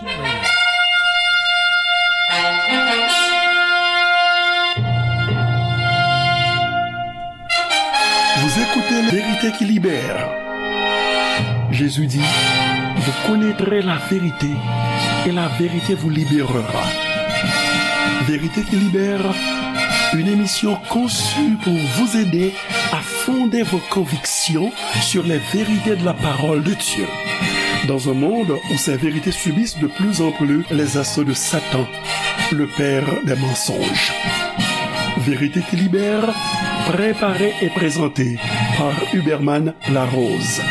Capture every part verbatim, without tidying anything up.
Vous écoutez La Vérité qui libère. Jésus dit, vous connaîtrez la vérité et la vérité vous libérera. Vérité qui libère, une émission conçue pour vous aider à fonder vos convictions sur les vérités de la parole de Dieu. Dans un monde où ces vérités subissent de plus en plus les assauts de Satan, le père des mensonges. Vérité qui libère, préparée et présentée par Huberman Larose.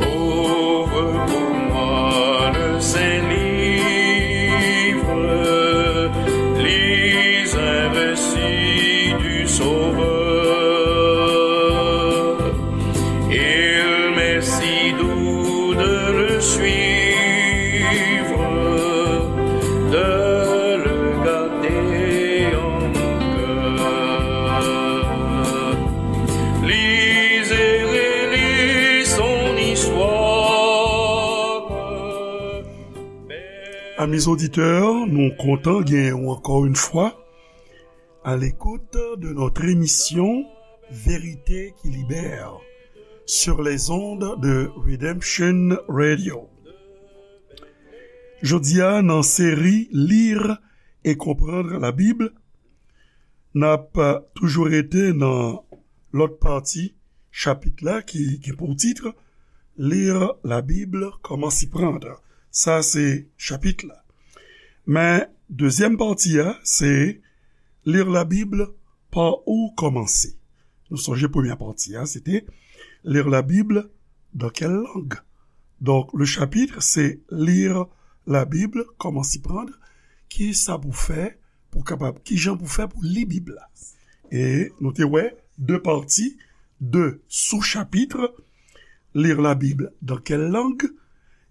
Ouvre pour moi le Saint-Livre, lis un récit du Sauveur. Il m'est si doux de le suivre, de le garder en mon cœur. Lis et relis son histoire. Amis auditeurs, nou kontan genyen w encore une fois à l'écoute de notre émission Vérité qui libère sur les ondes de Redemption Radio. Jodi a, nan seri Lire et comprendre la Bible, n ap toujou rete nan lòt pati chapit la ki gen pou tit Lire la Bible, comment s'y prendre. Sa se chapit la. Men dezyèm pati a, se Lire la Bible, par où commencer. Nou sonje premyè pati a, se te Lire la Bible, dans quelle langue. Donk, le chapitre, se Lire la Bible, comment s'y prendre. Ki sa pou fè, pou kapab, ki jan pou fè pou li Bib la. E nou te wè de pati, de sou-chapitre, Lire la Bible, dans quelle langue.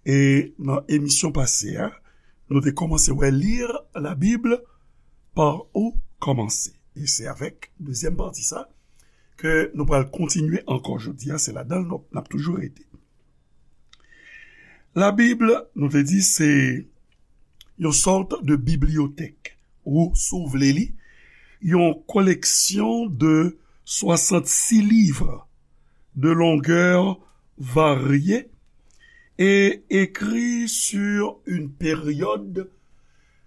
E nan emisyon pase a, nou te kòmanse wè Lire la Bible, par où commencer. E se avèk dezyèm pati sa ke nou pral kontinye ankò jodi a, se ladan l n ap toujou rete. Labib, nou te di, se yon sòt de bibliyotèk, ou, si w vle li, yon koleksyon de soixante-six livres de longueur variée et écrits sur une période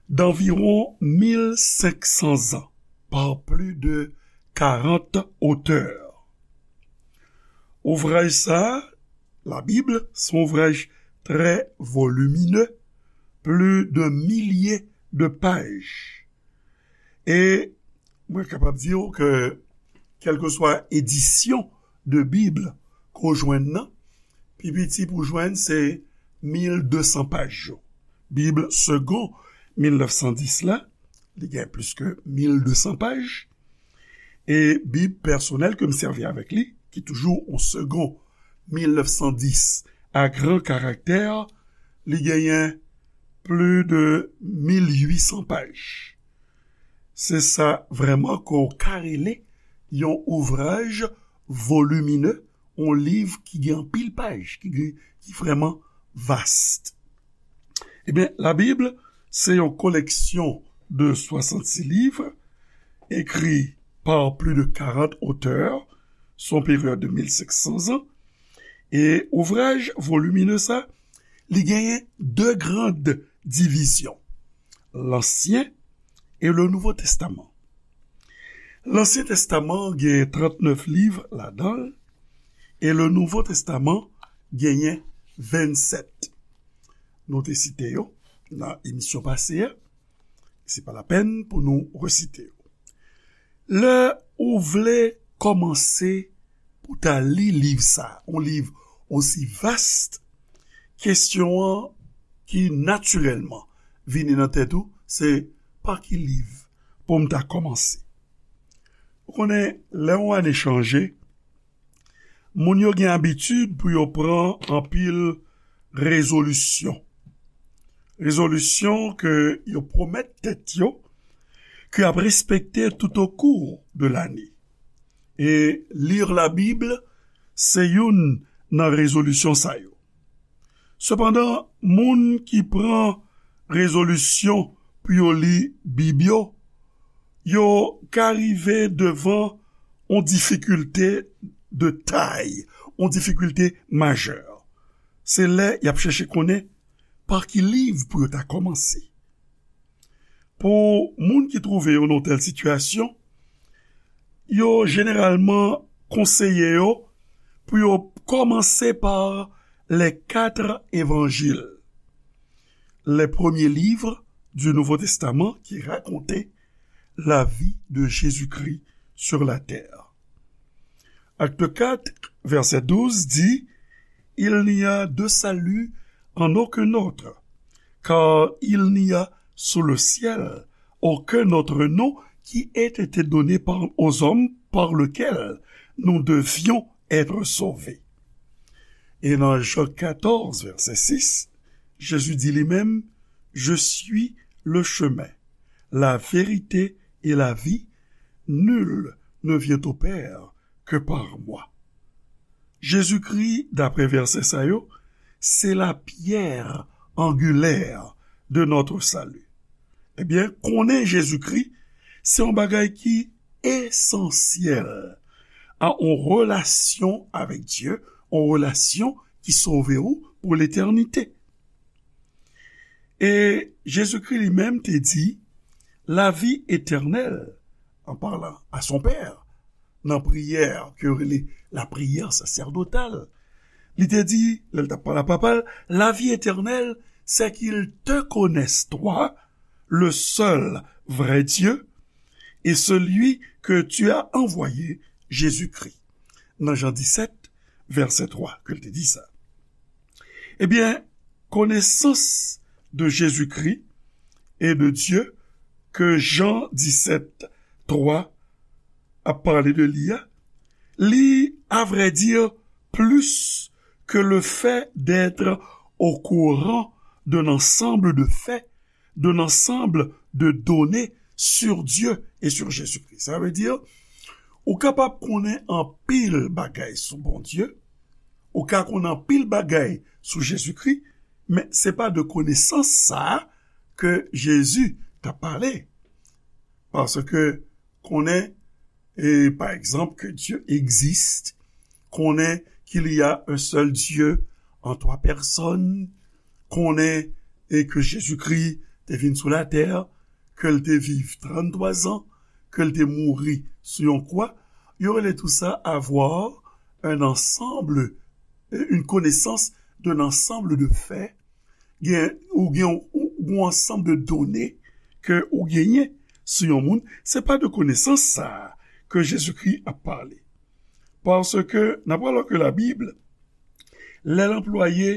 d'environ mille cinq cents ans par plus de quarante auteurs. Ouvraj sa a, Labib, se yon ouvraj trè voliminè, plis de milye de paj. E mwen kapab di w ke, kèlkeswa edisyon de Bib ke w jwenn nan, pi piti pou w jwenn se mil de san paj yo. Bib segon mil nèf san dis la, li gen plis ke mil de san paj. E Bib pèsonèl ke m sèvi avèk li, ki toujou yon segon mil nèf san dis a gran karaktè, li genyen plis de mil uit san paj. Se sa vrèman ke w ka rele yon ouvraj voliminè, yon liv ki gen anpil paj, ki gen, ki vrèman vast. Ebyen, Labib, se yon koleksyon de soixante-six livres écrits par plus de quarante auteurs, sou yon peryòd de mil senk san zan. E ouvraj voliminè sa, li genyen de grann divizyon, Lansyen e le Nouvo Testaman. Lansyen Testaman gen trannèf liv ladan l, e le Nouvo Testaman genyen vennsèt. Nou te site yo nan emisyon pase a. Se pa lapèn pou nou resite yo. Lè ou vle kòmanse pou ta li liv sa, yon liv osi vast, kesyon an ki natirèlman vini nan tèt ou, se pa ki liv pou m ta kòmanse. Ou konnen, lè yon ane chanje, moun yo gen abitid pou yo pran anpil rezolisyon. Rezolisyon ke yo pwomèt tèt yo, ke ap respekte tout o kou de lane. E lir la Bib se youn nan rezolisyon sa yo. Sepandan, moun ki pran rezolisyon pou yo li Bib yo, yo ka rive devan yon difikilte de tay, yon difikilte majè. Se lè y ap chèche konnen pa ki liv pou yo ta kòmanse. Pou moun ki twouve yo nan tèl sitiyasyon, yo jeneralman konseye yo pou yo kòmanse pa les quatre évangiles, les premiers livres du Nouveau Testament qui racontaient la vie de Jésus-Christ sur la terre. Acte quatre, verset douze dit, Il n'y a de salut en aucun autre, car il n'y a sous le ciel aucun autre nom qui ait été donné par, aux hommes par lequel nous devions être sauvés. Et dans Jean quatorze, verset six, Jésus dit lui-même, Je suis le chemin, la vérité et la vie. Nul ne vient au Père que par moi. Jezikri, daprè vèsè sa yo, se la pierre angulaire de notre salut. Ebyen, konnen Jezikri, se yon bagay ki esansyèl a yon relasyon avèk Dye, yon relasyon ki sove ou pou letènite. E Jezikri li menm te di, la vie éternelle, en parlant à son Père, nan priyè ke yo rele la prière sacerdotale, li te di, lè l t ap pale a Papa l, la vie éternelle, c'est qu'ils te connaissent, toi, le seul vrai Dieu, et celui que tu as envoyé, Jésus-Christ. Nan Jan disèt, vèsè twa, ke l te di sa. Ebyen, konesans de Jezikri e de Dye ke Jan disèt twa ap pale de li a, li, à vrai dire, plus que le fait d'être au courant d'un ensemble de faits, d'un ensemble de données sur Dieu et sur Jésus-Christ. Sa vle di, ou kapab konnen anpil bagay sou Bondye, ou ka konnen anpil bagay sou Jezikri, men se pa de konesans sa a ke Jezi t ap pale. Paske konnen, e, pa egzanp, ke Dye egziste, konnen qu'il y a un seul Dieu en trois personnes, konnen e ke Jezikri te vin sou latè, ke l te viv tranntwa zan, ke l te mouri sou yon kwa, yo rele tou sa avoir un ensemble, une connaissance d'un ensemble de faits, gen, ou gen yon, yon ansanm de done ke ou genyen sou yon moun, se pa de konesans sa a ke Jezikri ap pale. Paske n ap wè lòske Labib, lè l anplwaye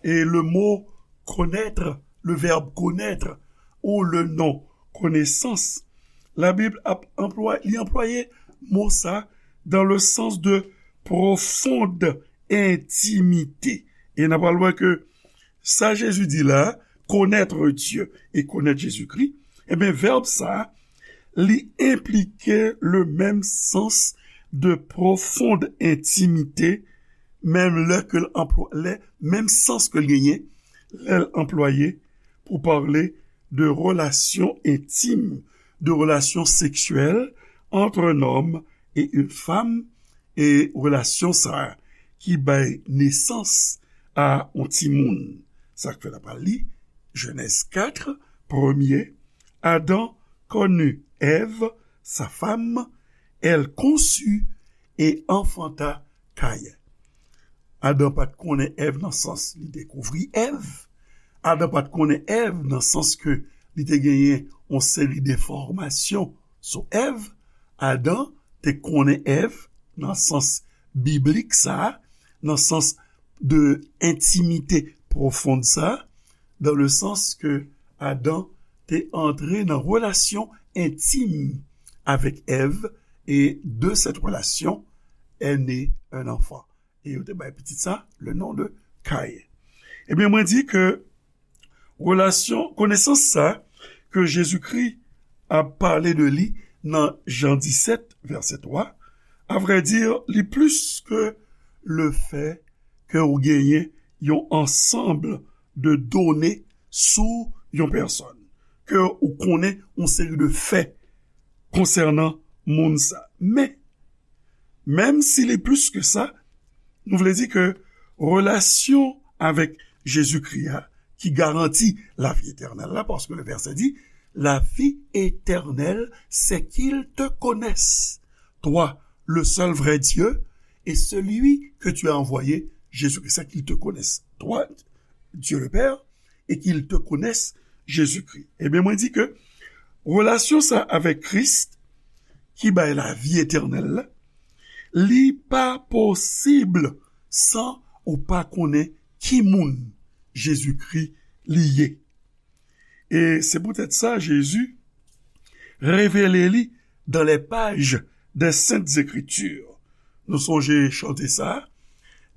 e le mot connaître, le verbe connaître, ou le nom connaissance, Labib ap anplwaye, li anplwaye mo sa dans le sens de profonde intimité. E n ap pral wè ke sa Jezi di la, connaître Dieu et connaître Jésus-Christ, ebyen, vèb sa, li enplike le menm sans de profonde intimité, menm lè ke l anplwa-, lè, menm sans ke l genyen, lè l anplwaye pou pale de relasyon entim, de relasyon seksyèl entre un homme et une femme, e relasyon sa a ki bay nesans a yon timoun. Sa k fè n ap li Jenèz kat, premye, Adam connut Ève, sa femme, elle conçut et enfanta Caïn. Adan pa t konnen Èv nan sans li dekouvri Èv. Adan pa t konnen Èv nan sans ke li te genyen yon seri enfòmasyon sou Èv. Adan te konnen Èv nan sans biblik sa a, nan sans de entimite pwofon sa a, dans le sens que Adam te antre nan relasyon entim avèk Èv, et de cette relation est né un enfant. E yo te bay pitit sa le nom de Caïn. Ebyen, mwen di ke relasyon, konesans sa ke Jezikri ap pale de li nan Jan disèt, vèsè twa, avrèdi, li plis ke le fè ke ou genyen yon ansanm de done sou yon pèsòn, ke ou konnen yon seri de fè konsènan moun sa. Men, menm si li plis ke sa, nou vle di ke relasyon avèk Jezikri a ki garanti lavi etènèl la, paske le vèsè di, la vie éternelle, c'est qu'ils te connaissent, toi, le seul vrai Dieu, et celui que tu as envoyé, Jésus-Christ, c'est qu'ils te connaissent, toi, Dieu le Père, et qu'ils te connaissent, Jésus-Christ. Ebyen, mwen di ke relasyon sa avèk Kris, ki bay lavi etènèl la, li pa posib san ou pa konnen ki moun Jezikri li ye. E se poutèt sa, Jezi revele li dans les pages des Saintes Écritures. Nou sonje chante sa,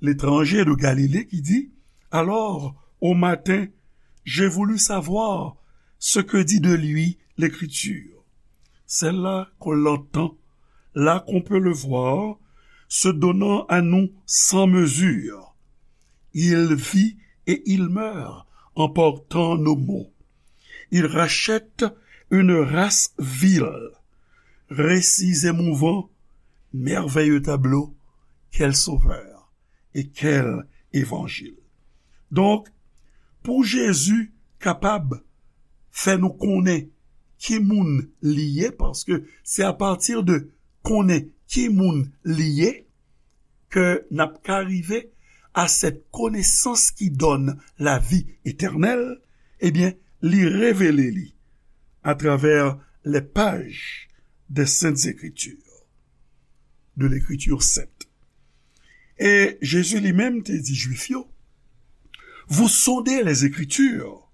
L'étranger de Galilée, ki di, alors, au matin, j'ai voulu savoir ce que dit de lui l'Écriture. Celle-là qu'on l'entend, là qu'on peut le voir, se donnant à nous sans mesure. Il vit et il meurt en portant nos maux. Il rachète une race vile. Récits émouvants, merveilleux tableau, quel sauveur et quel évangile. Donk, pou Jezi kapab fè nou konnen ki moun li ye, paske se apati de konnen ki moun li ye, ke n ap ka rive à cette connaissance qui donne la vie éternelle, ebyen, li revele li atravè les pages des Saintes Écritures, de l'Écriture sainte. E Jezi li menm te di Jwif yo, vous sondez les Écritures,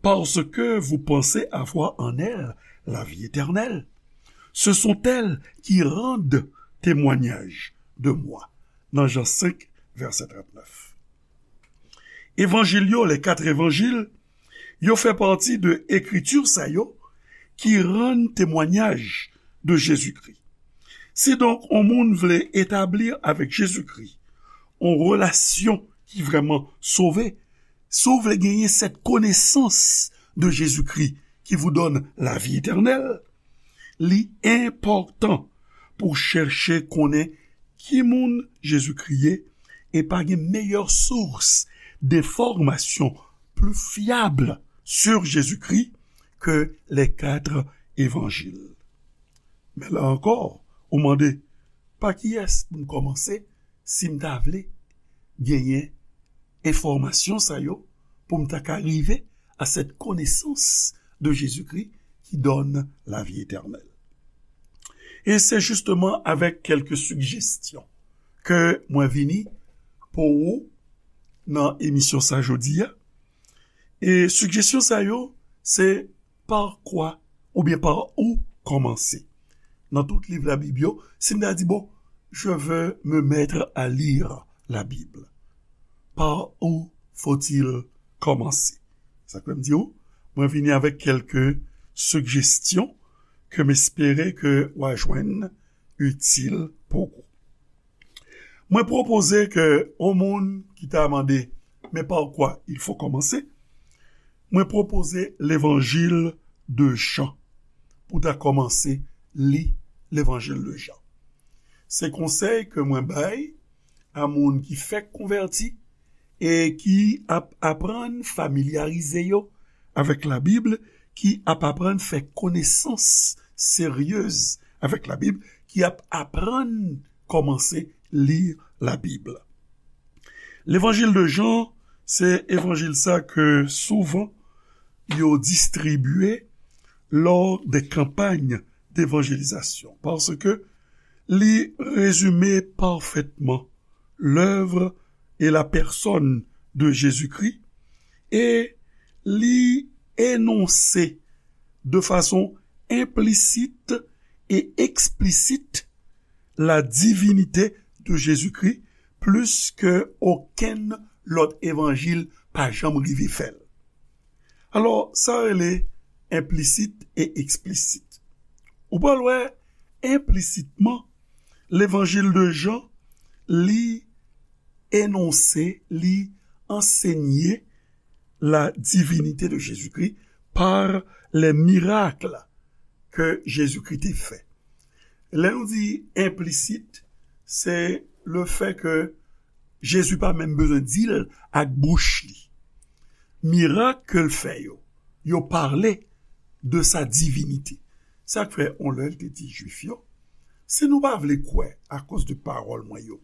parce que vous pensez avoir en elles la vie éternelle. Ce sont elles qui rendent témoignage de moi. Nan Jan senk, vèsè trannèf. Evanjil yo, les quatre évangiles, yo fè pati de ekriti sa yo ki rann temwayaj de Jezikri. Si donk yon moun vle etabli avèk Jezikri yon relasyon ki vrèman sove, si w vle genyen cette connaissance de Jésus-Christ qui vous donne la vie éternelle, li enpòtan pou chèche konnen ki moun Jezikri ye, e pa gen meyè sous denfòmasyon pli fyab sur Jésus-Christ ke les quatre évangiles. Men la ankò, ou mande, pa kiyès pou m kòmanse si m ta vle genyen enfòmasyon sa yo, pou m ta ka rive à cette connaissance de Jésus-Christ qui donne la vie éternelle. E se jisteman avèk kèlke sijesyon ke mwen vini pou ou nan emisyon sa jodi a. E sijesyon sa yo, se par quoi oubyen par où kòmanse. Nan tout liv Labib yo, si m ta di, bon, je veux me mettre à lire la Bible, par où faut-il commencer? Sa k fè m di w, mwen vini avèk kèlke sijesyon ke m espere ke w a jwenn itil pou ou. Mwen pwopoze ke yon moun ki ta mande, men pa kwa il fo kòmanse, mwen pwopoze levanjil de Jan pou ta kòmanse li levanjil de Jan. Se konsèy ke mwen bay a moun ki fèk konvèti e ki ap aprann familyarize yo avèk Labib, ki ap aprann fè konesans seryez avèk Labib, ki ap aprann kòmanse li Labib. Levanjil de Jan, se evanjil sa ke souvan yo distribye lors des campagnes d'évangélisation, paske li rezime pafètman l'œuvre et la personne de Jésus-Christ, e li enonse de fason enplisit e eksplisit la divinite de Jezikri plis ke okenn lòt evanjil pa janm rive fè l. Alò, sa rele enplisit e eksplisit. Ou pral wè, enplisitman, Levanjil de Jan, li enonse, li ansenye la divinité de Jésus-Christ par les miracles que Jésus-Christ te fè. Lè nou di enplisit, se le fè ke Jezi pa menm bezwen di l ak bouch li. Mirak ke l fè yo, yo pale de sa divinité. Sa k fè, on lè, l te di Jwif yo, si nou pa vle kwè akoz de pawòl mwen yo,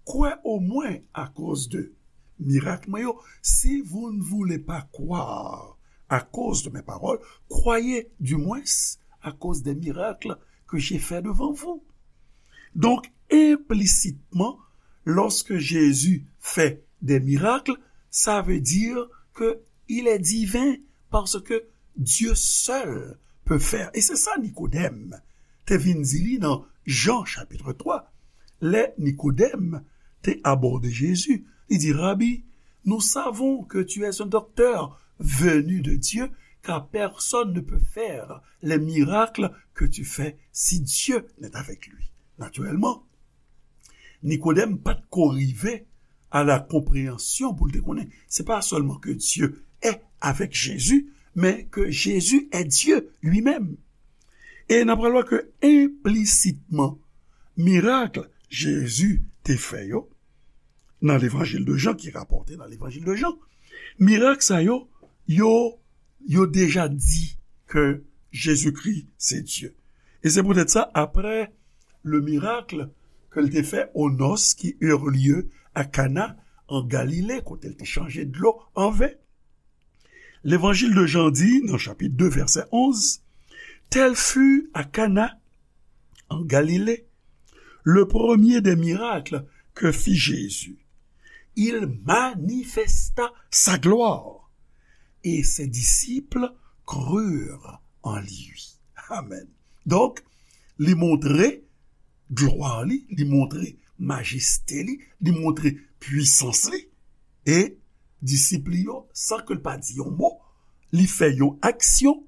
kwè omwen akoz de mirak mwen yo. Si vous ne voulez pas croire à cause de mes paroles, croyez du moins à cause des miracles que j'ai fait devant vous. Donc, implicitement, lorsque Jésus fait des miracles, ça veut dire que il est divin, parce que Dieu seul peut faire. Et c'est ça Nicodème te vin di li nan Jan chapit twa. Lè Nikodèm te abòde Jezi, li di, Rabi, nous savons que tu es un docteur venu de Dieu, car personne ne peut faire les miracles que tu fais si Dieu n'est avec lui. Naturellement, Nikodèm pa t ko rive à la compréhension pou l te konnen se pa sèlman que Dieu est avec Jésus, mais que Jésus est Dieu lui-même. E n ap pral wè ke enplisitman, mirak Jezi te fè yo nan Levanjil de Jan, ki rapòte nan Levanjil de Jan, mirak sa yo, yo, yo deja di ke Jezikri se Dye. E se poutèt sa, apre le miracle ke l te fè o nos ki eurent lieu à Cana en Galilée, kote l te chanje dlo an ven, Levanjil de Jan di, nan chapit de, vèsè onz, Tel fut à Cana, en Galilée, le premier des miracles que fit Jésus. Il manifesta sa gloire, et ses disciples crurent en lui. Amen. Donk, li montre glwa li, li montre majeste li, li montre pwisans li. E disip li yo, san ke l pa di yon mo, li fè yon aksyon,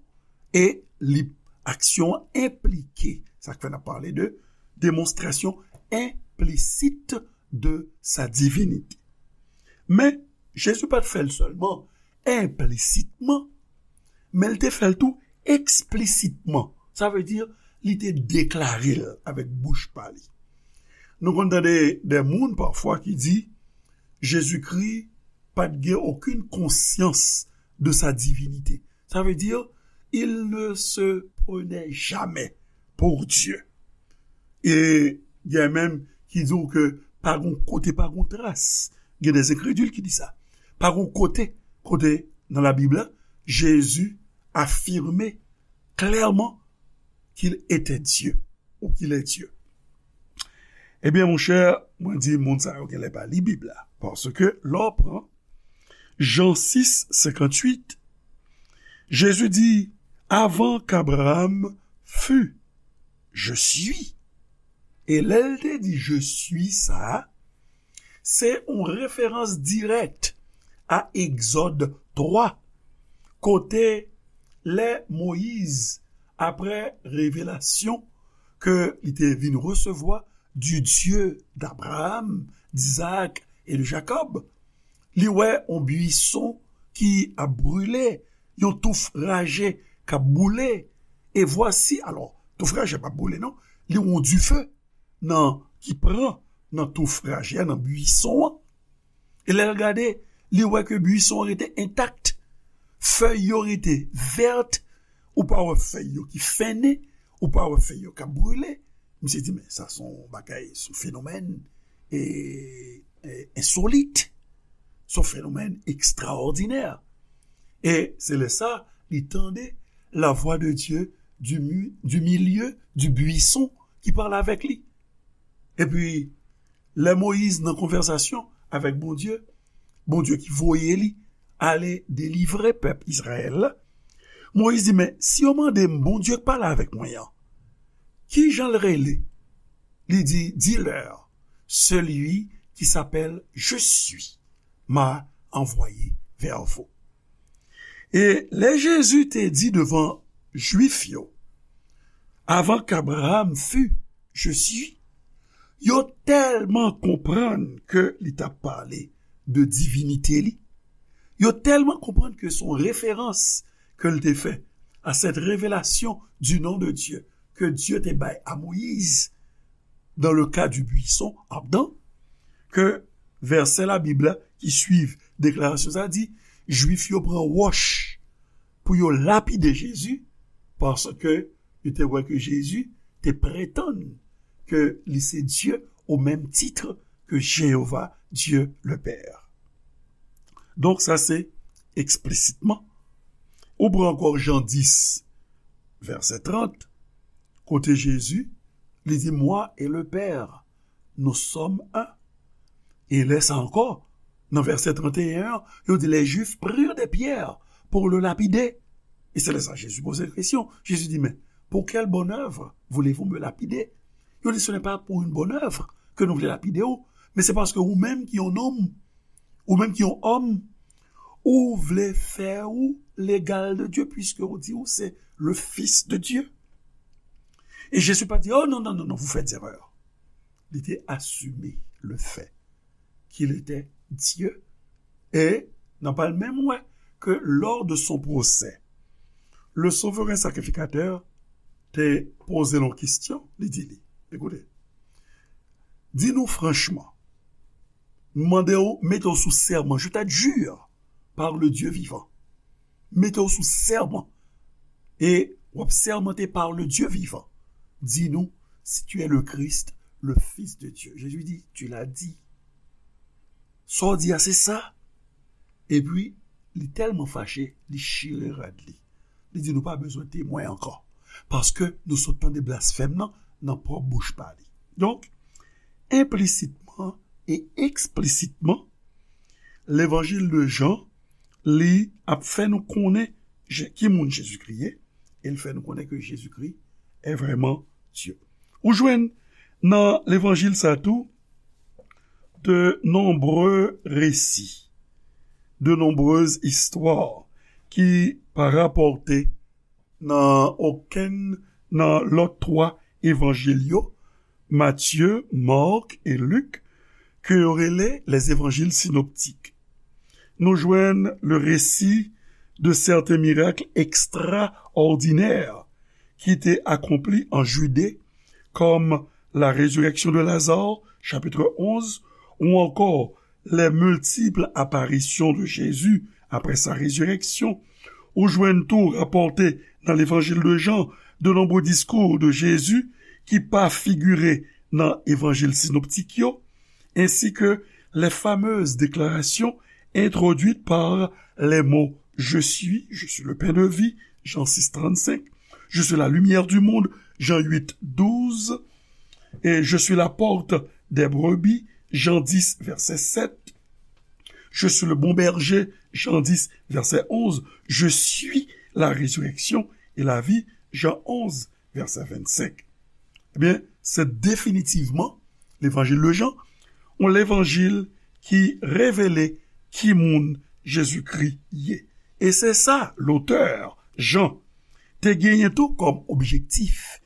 e li, aksyon an enplike. Sa k fè n ap pale de démonstration implicite de sa divinité. Men, Jezi pa t fè l sèlman enplisitman, men l te fè l tou eksplisitman. Sa vle di, li te deklare l avèk bouch pa li. Nou konn tande de moun pafwa ki di, Jezikri pa t gen okenn konsyans de sa divinité. Ça veut dire, il ne se prenait jamais pour Dieu. E gen menm ki di w ke pa gon kote, pa gon tras. Gen des incrédules ki di sa. Pa gon kote, kote nan Labib la, Jezi afime klèman qu'il était Dieu ou qu'il est Dieu. Ebyen, monchè, mwen di moun sa yo genlè pa li Bib la. Paske lè w pran Jan sis, senkanntuit, Jezi di, Avant qu'Abraham fût, je suis. E lè l te di je suis sa a, se yon referans dirèk a Egzòd twa, kote lè Moyiz, apre revelasyon ke li te vin resevwa du Dieu d'Abraham, d'Isaac et de Jacob, li wè yon bwison ki ap brile, yon touf raje k ap boule. E vwasi, alò, touf raje p ap boule, non, li yon dife nan, ki pran nan touf raje a, nan bwison an. E lè l gade, li wè ke bwison an rete entak, fèy yo rete vèt, ou pa wè fèy yo ki fennen, ou pa wè fèy yo k ap brile. Misye di, men sa se yon bagay, se yon fenomèn, e, e, ensolit, se yon fenomèn ekstraòdinè. E se lè sa, li tande la voix de Dieu du, mi- du milieu du buisson ki pale avèk li. Epi, lè Moyiz nan konvèsasyon avèk Bondye, Bondye ki voye li ale delivre pèp Izrayèl la, Moyiz di, men si yo mande m, Bondye k pale avèk mwen an, ki jan l rele? Li di, Dis-leur, celui qui s'appelle Je suis m'a envoyé vers vous. E lè Jezi te di devan Jwif yo, Avant qu'Abraham fût, je suis. Yo tèlman konprann ke li t ap pale de divinite li. Yo tèlman konprann ke se yon referans ke l te fè à cette révélation du nom de Dieu que Dieu te bay à Moïse dans le cas du buisson ardent, ke vèsè Labib la ki swiv deklarasyon sa a di, Jwif yo pran wòch pou yo lapide Jezi, paske yo te wè ke Jezi te pretann ke li se Dye au même titre que Jéhovah, Dieu le Père. Donk, sa se eksplisitement. Ou pran ankò Jan dis, vèsè trant, kote Jezi, li di, Moi et le Père, nous sommes un. E lè sa ankò, nan vèsè trant e en an, yo di, Les Juifs prirent des pierres pour le lapider. E se lè sa Jezi poze l kesyon. Jezi di, Men, pour quelle bonne œuvre voulez-vous me lapider? Yo di, Ce n'est pas pour une bonne œuvre que nou vle lapide w, men se paske ou menm ki yon nonm, ou menm ki yon òm, ou vle fè ou l'égal de Dieu, puisque ou di ou se le Fils de Dieu. E Jezi pa di, Oh non, non, non, non, vous faites erreur. Li te asime le fait qu'il était Dieu. E n ap al menm wè ke lors de son procès, le souverain sacrificateur te poze l yon kesyon, li di li, Ekoute, di nou franchman, m mande w, mete w sou sèman, je t'adjure par le Dieu vivant. Mete w sou sèman. E w ap sèmante par le Dieu vivant. Di nou si tu es le Christ, le Fils de Dieu. Jésus dit, Tu l'as dit. Sa w di a, se sa. Epi, li tèlman fache, li chire rad li. Li di, Nou pa bezwen temwen ankò. Paske nou sot tande blasfèm nan nan pwòp bouch pa li. Donk, enplisitman e eksplisitman, levanjil de Jan, li ap fè nou konnen Je- ki moun Jezikri ye, e l fè nou konnen ke Jezikri est vraiment Dieu. Ou jwenn nan levanjil sa tou de nombreux récits, de nombreuses histoires ki pa rapòte nan okenn nan lòt twa evanjil yo, Matye, Mak e Lik, ke yo rele les évangiles synoptiques. Nou jwenn le récit de certains miracles extraordinaires ki te akonpli an Jide, kòm la résurrection de Lazare, chapitre onze, ou ankò les multiples apparitions de Jésus après sa résurrection. Ou jwenn tou rapòte nan levanjil de Jan de nombreux discours de Jésus ki pa figire nan evanjil sinoptik yo, ainsi que les fameuses déclarations introduites par les mots Je suis, je suis le pain de vie, Jean six trente-cinq, Je suis la lumière du monde, Jean huit douze, et Je suis la porte des brebis, Jean dix, verset sept, Je suis le bon berger, Jean dix, verset onze, Je suis la résurrection et la vie, Jean onze, verset vingt-cinq. Ebyen, se definitivman levanjil de Jan, yon levanjil ki revele ki moun Jezikri ye. E se sa lotè, Jan, te genyen tou kòm objektif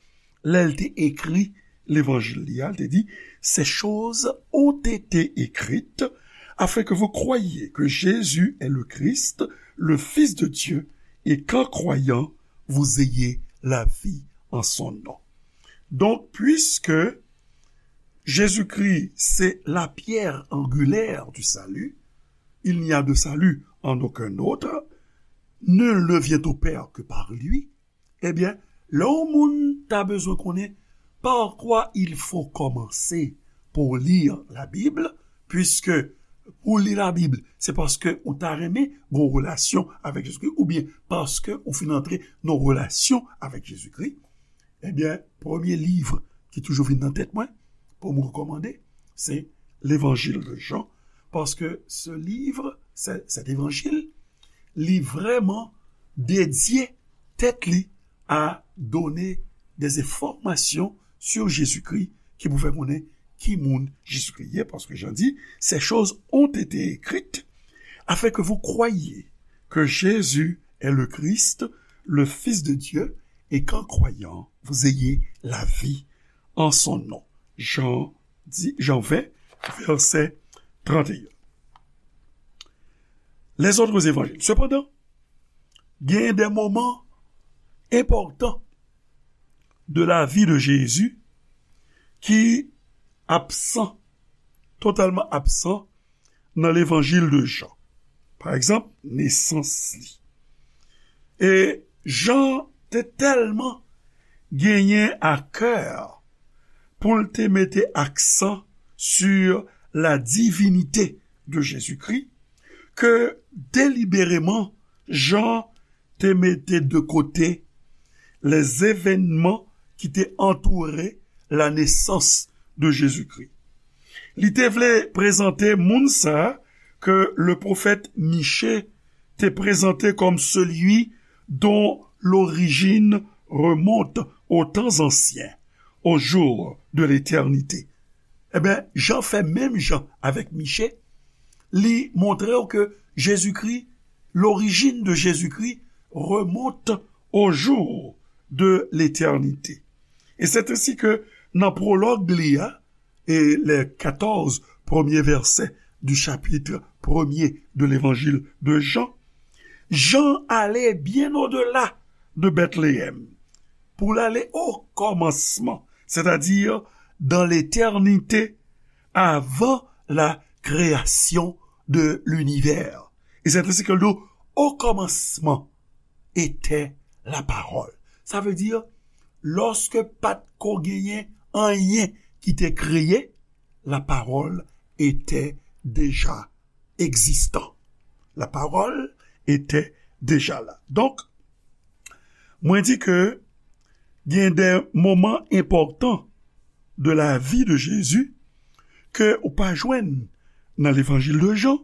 lè l te ekri levanjil li a, l te di, Ces choses ont été écrites afin que vous croyiez que Jésus est le Christ, le Fils de Dieu, et qu'en croyant, vous ayez la vie en son nom. Donc, puisque Jésus-Christ, c'est la pierre angulaire du salut, il n'y a de salut en aucun autre, nul ne vient au Père que par lui, ebyen, lè yon moun ta bezwen konnen par quoi il faut commencer pour lire la Bible, puisque pou li Labib, se paske ou ta renmen gen yon relasyon avèk Jezikri, oubyen paske ou fin antre nan yon relasyon avèk Jezikri, ebyen, premye liv ki toujou vin nan tèt mwen, pou m rekòmande, se Levanjil de Jan, paske se liv, se, cet évangile, li vrèman dedye tèt li à donner des informations sur Jésus-Christ ki pou fè konnen ki moun Jezikri ye, paske Jan di, Ces choses ont été écrites afin que vous croyiez que Jésus est le Christ, le Fils de Dieu, et qu'en croyant, vous ayez la vie en son nom. Jean dix, Jean vingt, verset trente et un. Les autres évangiles. Cependant, il y a des moments importants de la vie de Jésus ki absan, totalman absan nan levanjil de Jan. Pa egzanp, nesans li. E Jan te tèlman genyen a kè pou l te mete aksan sur la divinité de Jésus-Christ ke delibereman Jan te mete de kote les événements ki te antoure la nesans de Jezikri. Li te vle prezante moun sa a ke le pwofèt Miche te prezante kòm celui dont l'origine remonte aux temps anciens, aux jours de l'éternité. Ebyen, Jan fè menm jan avèk Miche, li montre w ke Jezikri, l'origine de Jésus-Christ remonte aux jours de l'éternité. Et c'est ainsi que nan pwològ li a, et les quatorze premiers versets du chapitre premier de l'évangile de Jean, Jan ale bien au-delà de Bethléem pou l ale o kòmansman, c'est-à-dire dans l'éternité, avant la création de l'univers. E se te sa ke l di, o kòmansman, était la parole. Sa vle di, lòske pa t ko genyen anyen ki te kreye, la parole était déjà existant. La parole était déjà là. Donk, mwen di ke gen de moman enpòtan de la vi de Jezi ke ou pa jwenn nan levanjil de Jan,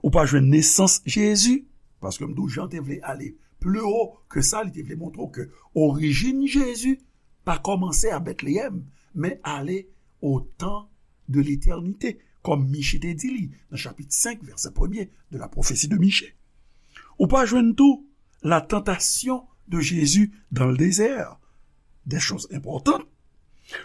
ou pa jwenn nesans Jezi, paske m di w Jan te vle ale pli wo ke sa, li te vle montre w ke orijin Jezi pa kòmanse a Betleyèm, men ale au temps de l'éternité, kòm Miche te di li nan chapit senk, vèsè premye de la prophétie de Miche. Ou pa jwenn tou la tentation de Jésus dans le désert, des choses importantes.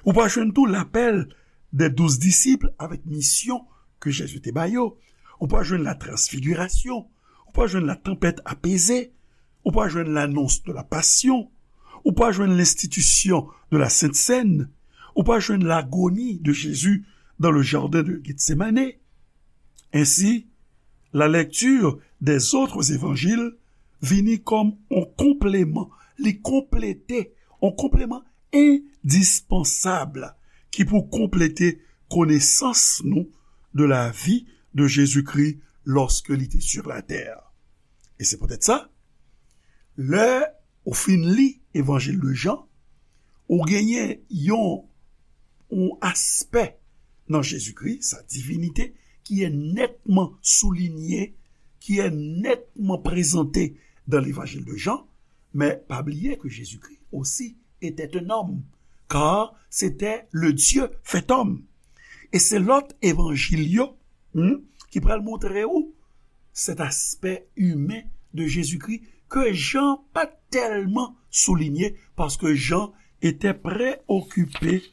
Ou pa jwenn tou l'appel des douze disciples avèk misyon ke Jezi te ba yo. Ou pa jwenn la transfigurasyon. Ou pa jwenn la tempête apaisée. Ou pa jwenn l'annonce de la passion. Ou pa jwenn l'institution de la Sainte Seine. Ou pa jwenn l'agonie de Jésus dans le jardin de Gethsemane. Ainsi, la lecture des autres évangiles vini kòm yon konpleman, li konplete, yon konpleman endispansab ki pou konplete konesans nou de la vi de Jezikri lòske li te sur la tè. E se poutèt sa, lè ou fin li Evanjil de Jan, ou genyen yon, yon aspè nan Jezikri, sa divinite, ki est nettement souligné, qui est nettement présenté dans l'évangile de Jean, mais pas oublier que Jésus-Christ aussi était un homme, car c'était le Dieu fait homme. E se lòt evanjil yo, hmm, ki pral montre ou cet aspect humain de Jésus-Christ que Jean pas tellement souligné parce que Jean était préoccupé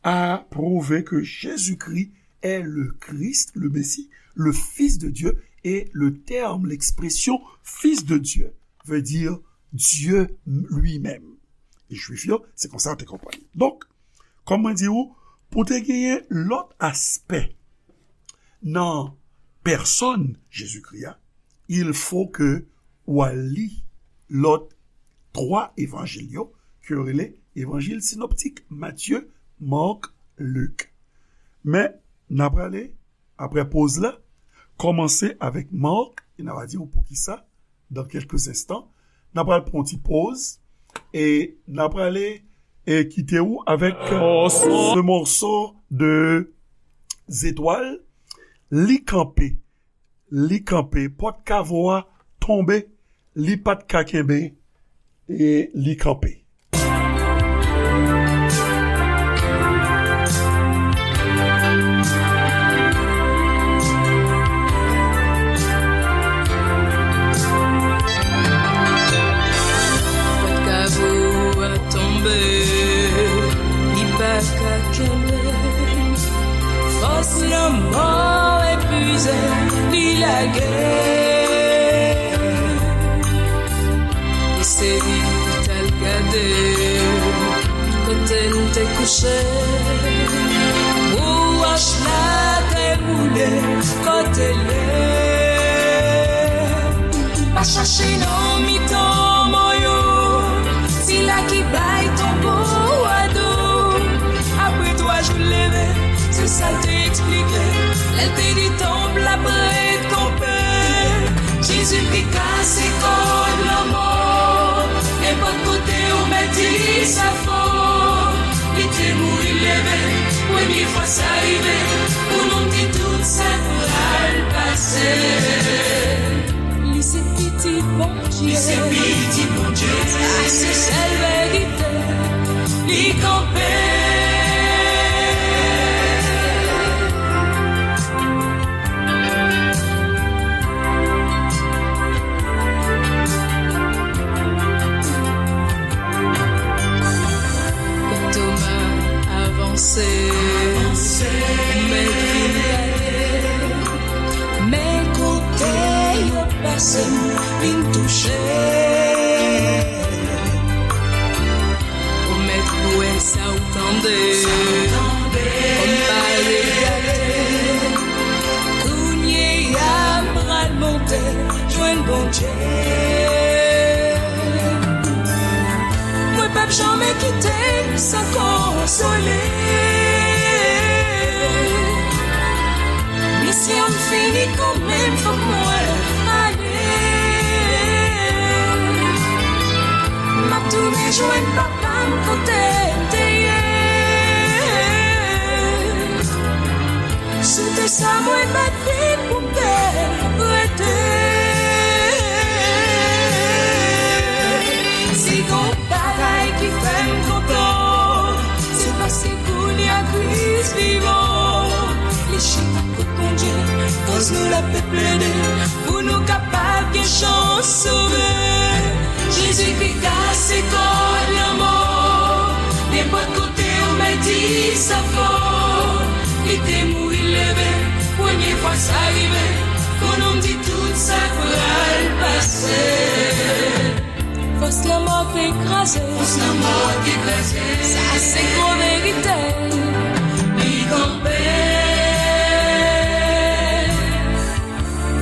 à prouver que Jésus-Christ est le Christ, le Messie, le Fils de Dieu, et le terme, l'expression Fils de Dieu veut dire Dieu lui-même. E Jwif yo, se konsa yo te konprann li. Donk, kòm mwen di ou, pou te genyen lòt aspè nan pèsòn Jezikri a, il faut que ou al li lòt twa evanjil yo, ke yo rele evanjil sinoptik, Matye, Mak, Lik. Men, n a prale, apre poz la, kòmanse avèk Mak, e n a va di ou poukisa, dans quelques instants. N a pral pran yon ti poz, e n a prale, e kite ou avèk, euh, ce morceau de Zetwal, Li kanpe, li kanpe, pòt kavo a tonbe, li pa t ka kenbe, e li kanpe. Pòt kavo Mizè li lage. Li sezi, t al gade kote l te kouche. Wòch la te boule kote l ye. Pa chache nan mitan mò yo, sila ki bay tonbo a do. Apre twa jou l leve, se sa l te eksplike. Lè l te di tonb la prèt kanpe, Jezi ki kase kòd lanmò. Nenpòt kote ou mèt di sa fò, li te mouri leve. Premye fwa sa rive, pou nou di tout sa pral pase. Li se pitit Bondye. Li se pitit Bondye. Sa se sèl verite. Li kanpe. Kan Toma avanse, mèt vin gade. Men kote yo pase m vin touche. O mèt, ou wè sa ou tande, kòm pale gate. Kounye a m pral monte jwenn Bondye. Mwen p ap janmen kite l san konsole. Misyon m fini kanmenm, fòk mwen ale. M ap tounen jwenn papa m kote l te ye. Sou tè sa mwen bat vit pou m te rete. Si gon bagay ki fè m kontan, se paske kounye a Kris vivan. Li chita kot Bondye, koz nou l ap plede, pou nou kapab gen chans sove. Jezi ki kase kòd lanmò, nenpòt kote ou mèt di sa fò. Li te mouri leve, premye fwa sa rive, pou nou di tout sa pral pase. Fòs lanmò te kraze. Fòs lanmò te kraze. Sa se gwo verite. Li kanpe.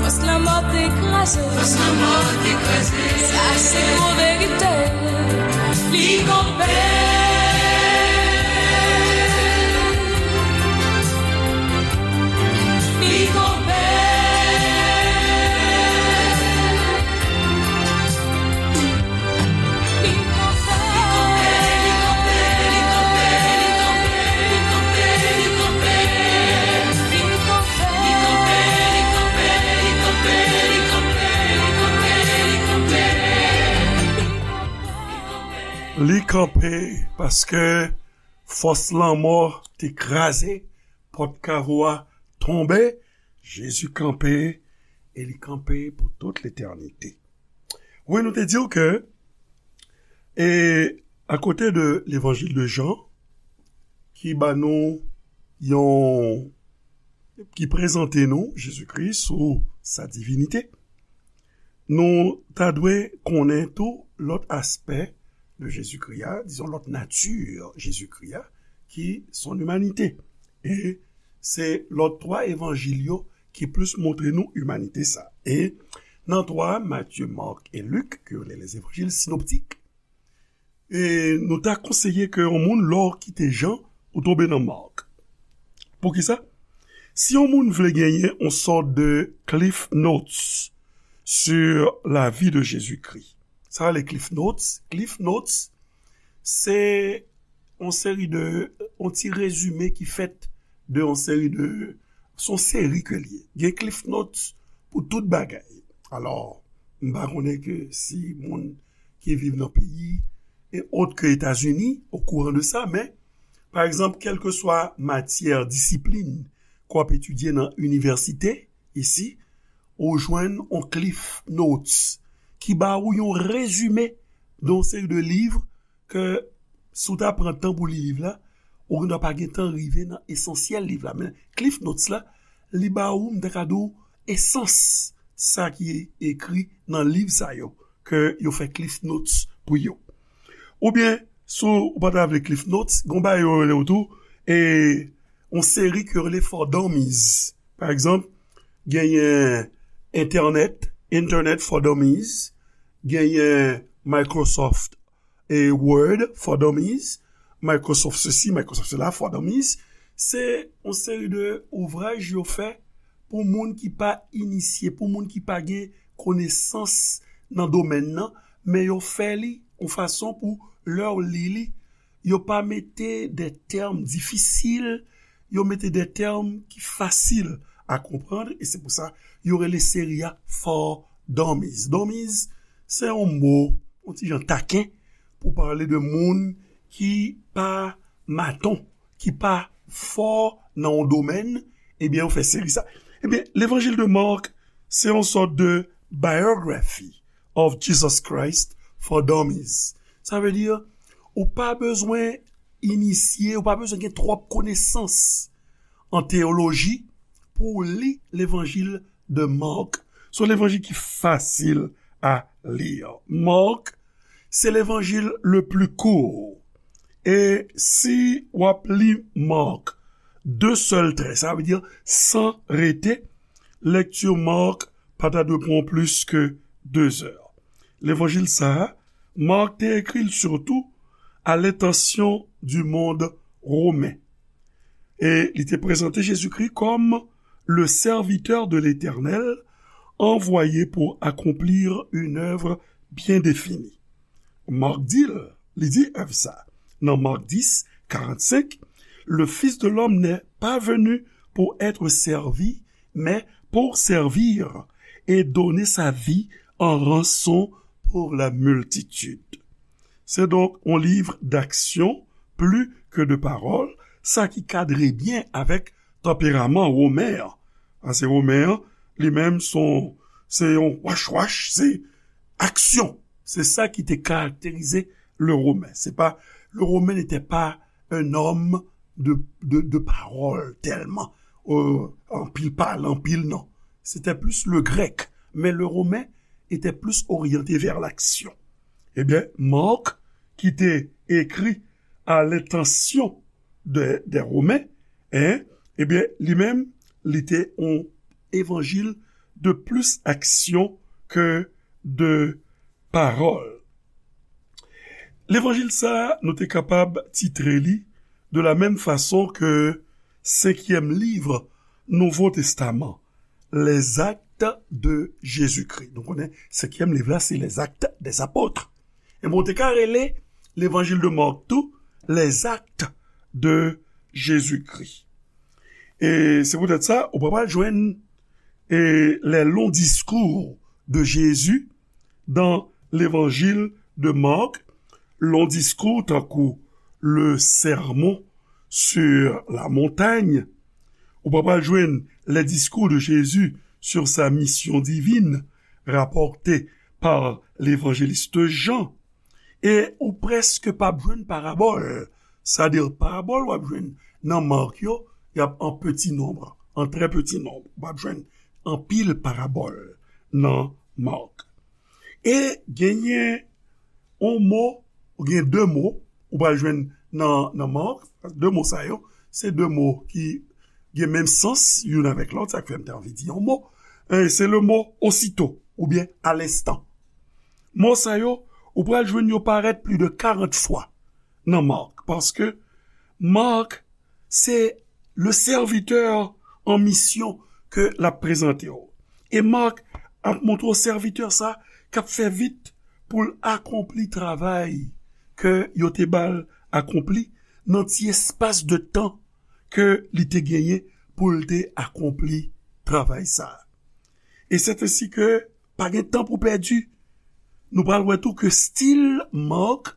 Fòs lanmò te kraze. Fòs lanmò te kraze. Sa se gwo verite. Li kanpe. Li kanpe. Li kanpe paske fòs lanmò te kraze, pòt kavo a tonbe, Jezi kanpe, e li kanpe pou tout letènite. Wi, nou te di w ke, e, akote de levanjil de Jan, ki ba nou yon, ki prezante nou Jezikri sou sa divinite, nou ta dwe konnen tou lòt aspè de Jezikri a, dizon lòt nati Jezikri a, ki son imanite. E se lòt twa evanjil yo ki plis montre nou imanite sa. E nan twa, Matye, Mak e Lik, ke yo rele les évangiles synoptiques, e nou ta konseye ke yon moun, lè w kite Jan, ou tonbe nan Mak. Poukisa? Si yon moun vle genyen yon sòt de Cliff Notes sur la vie de Jésus-Christ. Sa rele Cliff Notes. Cliff Notes, se yon seri de, yon ti rezime ki fèt de yon seri de, se yon seri ke l ye. Gen Cliff Notes pou tout bagay. Alò, m pa konnen ke si moun ki viv nan peyi e ot ke Etazini okouran de sa, men, pa egzanp, kèlkeswa matyè, disiplin ke w ap etidye nan inivèsite, isi, ou jwenn yon Cliff Notes ki ba ou yon rezime de yon seri de liv ke si w ta pran tan pou li liv la, ou gendwa pa gen tan rive nan esansyèl liv la. Men Cliff Notes la, li ba ou, m ta ka di w, esans sa ki ekri nan liv sa yo, ke yo fè Cliff Notes pou yo. Oubyen, si w pa ta vle Cliff Notes, gen yon bagay yo rele w tou, e yon seri ke yo rele For Dummies. Pa egzanp, genyen Internet, Internet for Dummies, genyen Microsoft e Word for Dummies, Microsoft sesi, Microsoft sela for Dummies. Se yon seri de ouvraj yo fè pou moun ki pa inisye, pou moun ki pa gen konesans nan domèn nan, men yo fè li yon fason pou lè w li li, yo pa mete de tèm difisil, yo mete de tèm ki fasil a konprann, e se pou sa yo rele seri a For Dummies. Dummies, se yon mo, yon ti jan taken, pou pale de moun ki pa maton, ki pa fò nan yon domèn, ebyen, yo fè seri sa. Ebyen, Levanjil de Mark, se yon sòt de Biography of Jesus Christ for Dummies. Sa vle di, ou pa bezwen inisye, ou pa bezwen gen twòp konesans an teyoloji pou w li Levanjil de Mark. Se yon levanjil ki fasil a li. Mark, se levanjil le plus court. E si w ap li Mark de sèl trè, sa vle di san rete, lekti Mark pa ta dwe pran w plis ke de zè. Levanjil sa a, Mark te ekri l sitou à l'intention du monde romain. E li te prezante Jezikri kòm le serviteur de l'Éternel, envoyé pour accomplir une œuvre bien définie. Mark di l, li di èv sa, nan Mark dis, karannsenk, le Fils de l'homme n'est pas venu pour être servi, mais pour servir et donner sa vie en rançon pour la multitude. Se donk yon liv d'action plus que de parole, sa ki kadre byen avèk tanperaman Women an. Paske Women an, li menm, se yon, se yon wachwach, se aksyon. Se sa ki te karakterize le Romain. C'est pas, le Romain n'était pas un homme de, de, de parole tellement, euh, anpil pale, anpil non. C'était plus le grec, mais le romain était plus orienté vers l'action. Ebyen, Mark, ki te ekri à l'intention de, des Romains, hein, ebyen, li menm, li te yon evanjil de plus action que de parole. Levanjil sa a, nou te kapab titre li de la menm fason ke senkyèm liv Nouvo Testaman, Les Actes de Jésus-Christ. Nou konnen senkyèm liv la, se Les Actes des Apôtres. E bon, te ka rele Levanjil de Mark tou, Les Actes de Jésus-Christ. E se poutèt sa, ou pa pral jwenn, e, les longs discours de Jésus dans l'évangile de Marc, long discours tankou le Sermon sur la montagne, ou pa pral jwenn les discours de Jésus sur sa mission divine rapportés par l'évangéliste Jean, e ou prèske p ap jwenn parabòl. Sa di parabòl w ap jwenn nan Mark yo, y ap an peti nonb, an trè peti nonb. Ou p ap jwenn anpil parabòl nan Mark. E genyen yon mo, ou gen de mo, ou pral jwenn nan, nan Mark, de mo sa yo, se de mo ki gen menm sans, youn avèk lòt, sa k fè m te anvi di yon mo. E se le mo aussitôt, oubyen à l'instant. Mo sa yo, ou pral jwenn yo parèt plis de karant fwa nan Mark, paske Mark, se le serviteur en mission ke l ap prezante w. E Mark ap montre w sèvitè sa k ap fè vit pou l akonpli travay ke yo te ba l akonpli nan ti espas de tan ke li te genyen pou l te akonpli travay sa a. E sèt ensi ke pa gen tan pou pèdi. Nou pral wè tou ke stil Mark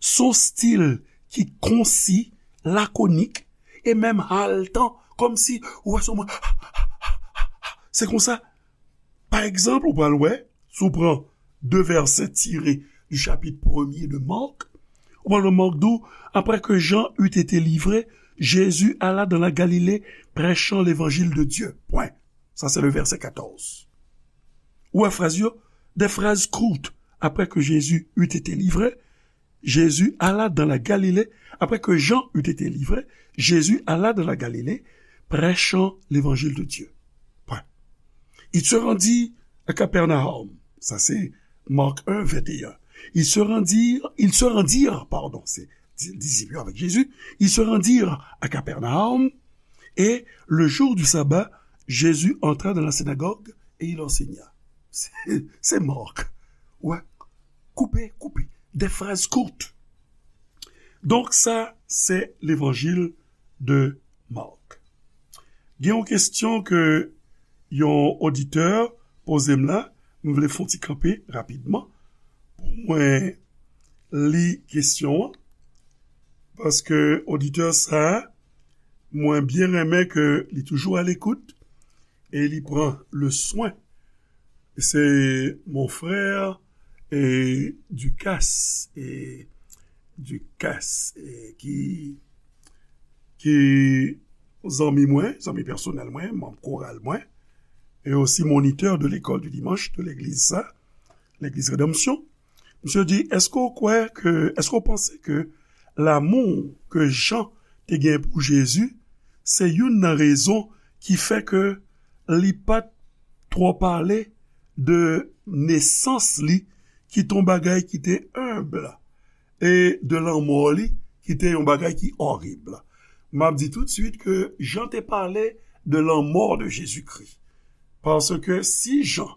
se yon stil ki konsi, lakonik, e menm haletan, kòmsi ou wè se yon moun. Se konsa, pa egzanp, ou pral wè, si w pran de vèsè tire du chapitre premier de Marc, ou pral wè Mark di w, après que Jean eut été livré, Jésus alla dans la Galilée, prêchant l'évangile de Dieu. Point. Ça, c'est le verset quatorze. Ou wè fraz yo, des phrases courtes. Après que Jésus eut été livré, Jésus alla dans la Galilée. Après que Jean eut été livré, Jésus alla dans la Galilée, prêchant l'évangile de Dieu. Point. Il se rendit à Capernaum. Ça, c'est Marc un, vingt et un. Ils se rendirent, ils se rendirent, pardon, c'est di- disciples avec Jésus, ils se rendirent à Capernaum, et le jour du sabbat, Jésus entra dans la synagogue et il enseigna. C'est c'est Marc. Ouais. Coupé, coupé. Des phrases courtes. Donc, ça, c'est l'évangile de Marc. Gen yon kesyon ke yon oditè poze m la, m vle fè yon ti kanpe rapidman pou mwen li kesyon an, paske oditè sa a, mwen byen renmen ke li toujou a lekout e li pran le swen. Se mon frè e Ducasse e Ducasse e ki ki zanmi mwen, zanmi pèsonèl mwen, manm koral mwen, e osi monitè de l'école du dimanche de l'église sa, l'église Rédemption. Misye di, èske w kwè ke, èske w panse ke lanmou ke Jan te gen pou Jezi, se youn nan rezon ki fè ke li pa t twò pale de nesans li, ki te yon bagay ki te enb, e de lanmò li, ki te yon bagay ki orib. M ap di toutswit ke Jan te pale de lanmò de Jezikri. Paske si Jan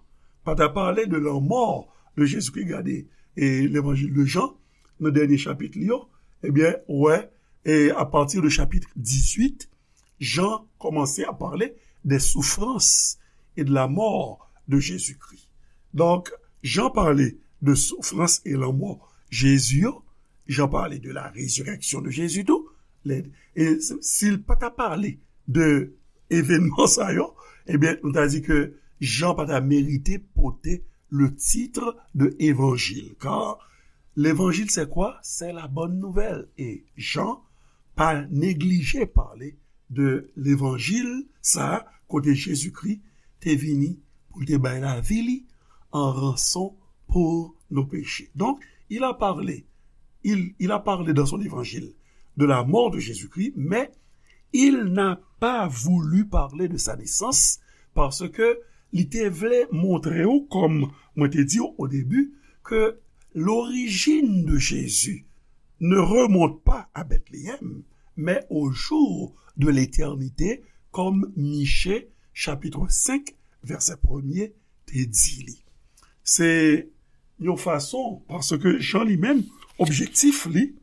pa ta pale de lanmò de Jezikri, gade, e levanjil de Jan, nan dènye chapit li yo, ebyen, ou wè, e apati de chapit dizuit, Jan kòmanse a pale de soufrans e de la mort de Jésus-Christ. Donk, Jan pale de soufrans e lanmò Jezi yo, Jan pale de la résurrection de Jésus tou. E si l pa ta pale de evènman sa yo, ebyen, nou ta di ke Jan pa ta merite pote le titre de évangile. Car l'évangile, c'est quoi? C'est la bonne nouvelle. E Jan pa neglije pale de levanjil sa a, kote Jezikri te vini pou l te bay lavi li an ranson pou nou peche. Donc, il a parlé, il, il a parlé dans son évangile de la mort de Jésus-Christ, mais il n'a pas voulu parler de sa naissance parce que li te vle montre w, kòm mwen te di w o debi, ke l'origine de Jésus ne remonte pas à Bethléem, mais au jour de l'éternité, kòm Miche, chapit senk, vèsè premye, te di li. Se yon fason, paske Jan li menm, objektif li,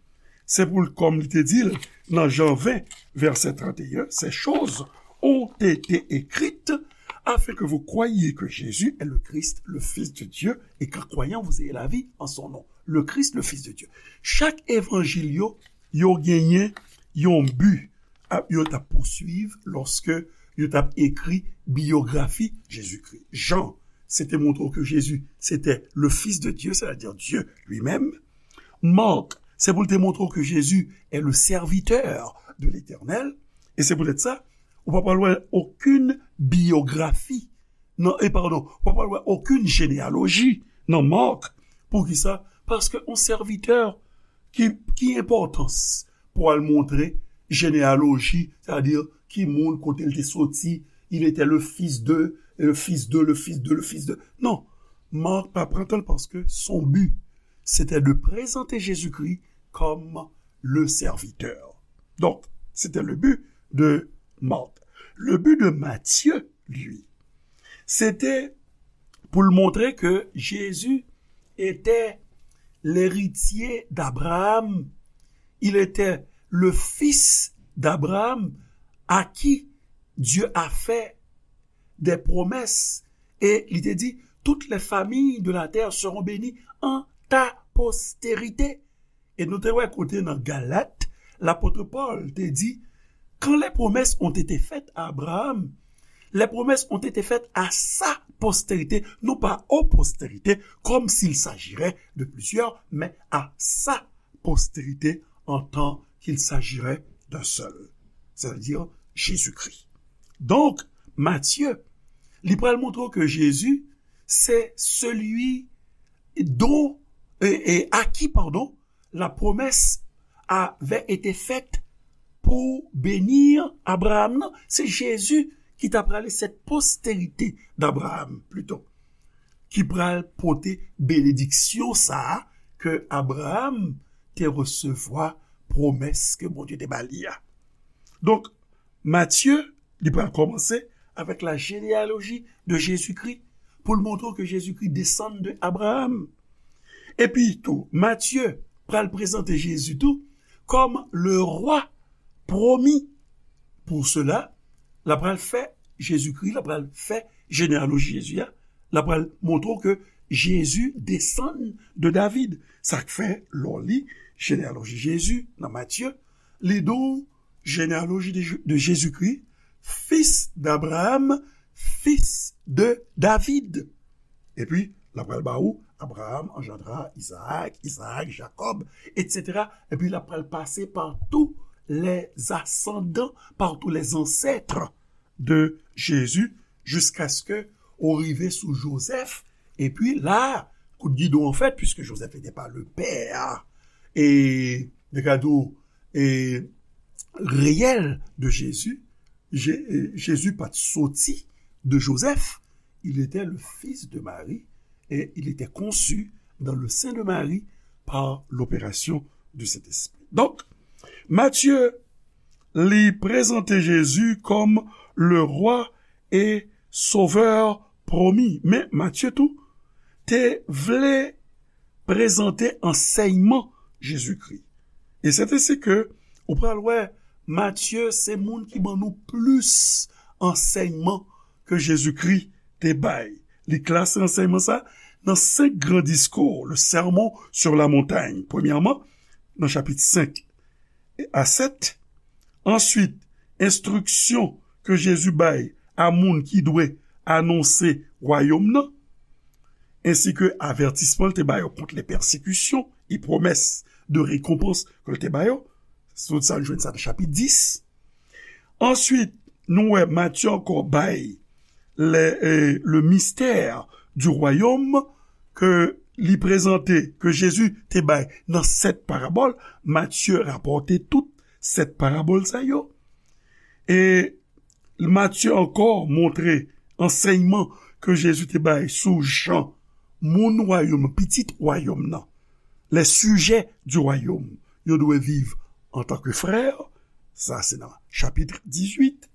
se pou l, kòm li te di l nan Jan ven, vèsè trannteyen, ces choses ont été écrites afin que vous croyiez que Jésus est le Christ, le Fils de Dieu, et qu'en croyant vous ayez la vie en son nom. Le Christ, le Fils de Dieu. Chak evanjil yo, yo genyen yon bi ap, yo t ap pousuiv lòske yo t ap ekri biyografi Jezikri. Jan, se te montre w ke Jezi, se te le Fils de Dieu, c'est-à-dire Dieu lui-même. Marc, se pou l te montre w ke Jezi est le serviteur de l'Éternel. E se poutèt sa, ou pa pral wè okenn biyografi nan, e padon, ou pa pral wè okenn jeneyaloji nan Marc. Poukisa? Paske yon sèvitè, ki, ki enpòtans pou al montre jeneyaloji, sètadi ki moun kote l te soti, il était le fils de, le fils de, le fils de, le fils de. Non, Marc pa pran tan l paske son bi, se te de prezante Jezikri kòm le serviteur. Donc, c'était le but de Marc. Le but de Matthieu, lui, se te pou l montre ke Jezi était l'héritier d'Abraham, il était le fils d'Abraham à qui Dieu a fait des promesses. E li te di, toutes les familles de la terre seront bénies en ta postérité. E nou te wè kote nan Galat, lapot Pòl te di, quand les promesses ont été faites à Abraham, les promesses ont été faites à sa postérité, non pas aux postérités, comme s'il s'agirait de plusieurs, mais à sa postérité, en tant qu'il s'agirait d'un seul. c'est-à-dire Jésus-Christ. Donk, Matye, li pral montre ke Jezi se celui dont, e, e, à qui, pardon, la promesse avait été faite pour bénir Abraham nan. Se Jezi ki ta prale cette postérité d'Abraham, plito, ki pral pote benediksyon sa a ke Abraham te resevwa, pwomès ke Bondye te ba li a. Donk, Matye, li pral kòmanse avec la généalogie de Jésus-Christ, pou l montre ke Jezikri desann de Abraham. Epi tou, Matye pral prezante Jezi tou kòm le roi promis. Pour cela, l ap pral fè Jezikri, l ap pral fè jeneyaloji Jezi a, l ap pral montre w ke Jezi desann de David. Sa k fè, lè w li jeneyaloji Jezi nan Matye, li di w généalogie de, de Jésus-Christ, fils d'Abraham, fils de David. Epi, l ap pral ba ou, Abraham engendra Isaac, Isaac, Jacob, et cetera. Epi, l ap pral pase par tous les ascendants, par tous les ancêtres de Jésus, jusqu'à ce que ou rive sou Joseph. Epi la, kout gidon an fèt, puisque Joseph n'était pas le père, e, de kado, e, réel de Jésus, Jé-, e, Jezi pa t soti de Joseph, il était le fils de Marie et il était conçu dans le sein de Marie par l'opération du Saint-Esprit. Donk, Matye, li prezante Jezi kòm le roi et sauveur promis. Men Matye tou te vle prezante ansèyman Jezikri. E se te si ke ou pral wè Matye se moun ki ban nou plis ansèyman ke Jezikri te bay. Li klase ansèyman sa nan senk gran diskou, le Sermon sur la Montagne. Premyèman, nan chapit senk a sèt. Answit, enstriksyon ke Jezi bay a moun ki dwe anonse wayòm nan, ensi ke avètisman l te ba yo kont le pèsekisyon e pwomès de rekonpans ke l te ba yo. Tout sa, nou jwenn sa nan chapit dis. Answit, nou wè Matye ankò bay le, e, le mystère du royaume ke li prezante, ke Jezi te bay nan sèt parabòl. Matye rapòte tout sèt parabòl sa yo. E Matye ankò montre ansèyman ke Jezi te bay sou jan moun wayòm, pitit wayòm nan, les sujets du royaume, yo dwe viv antanke frè, sa se nan chapit dizuit.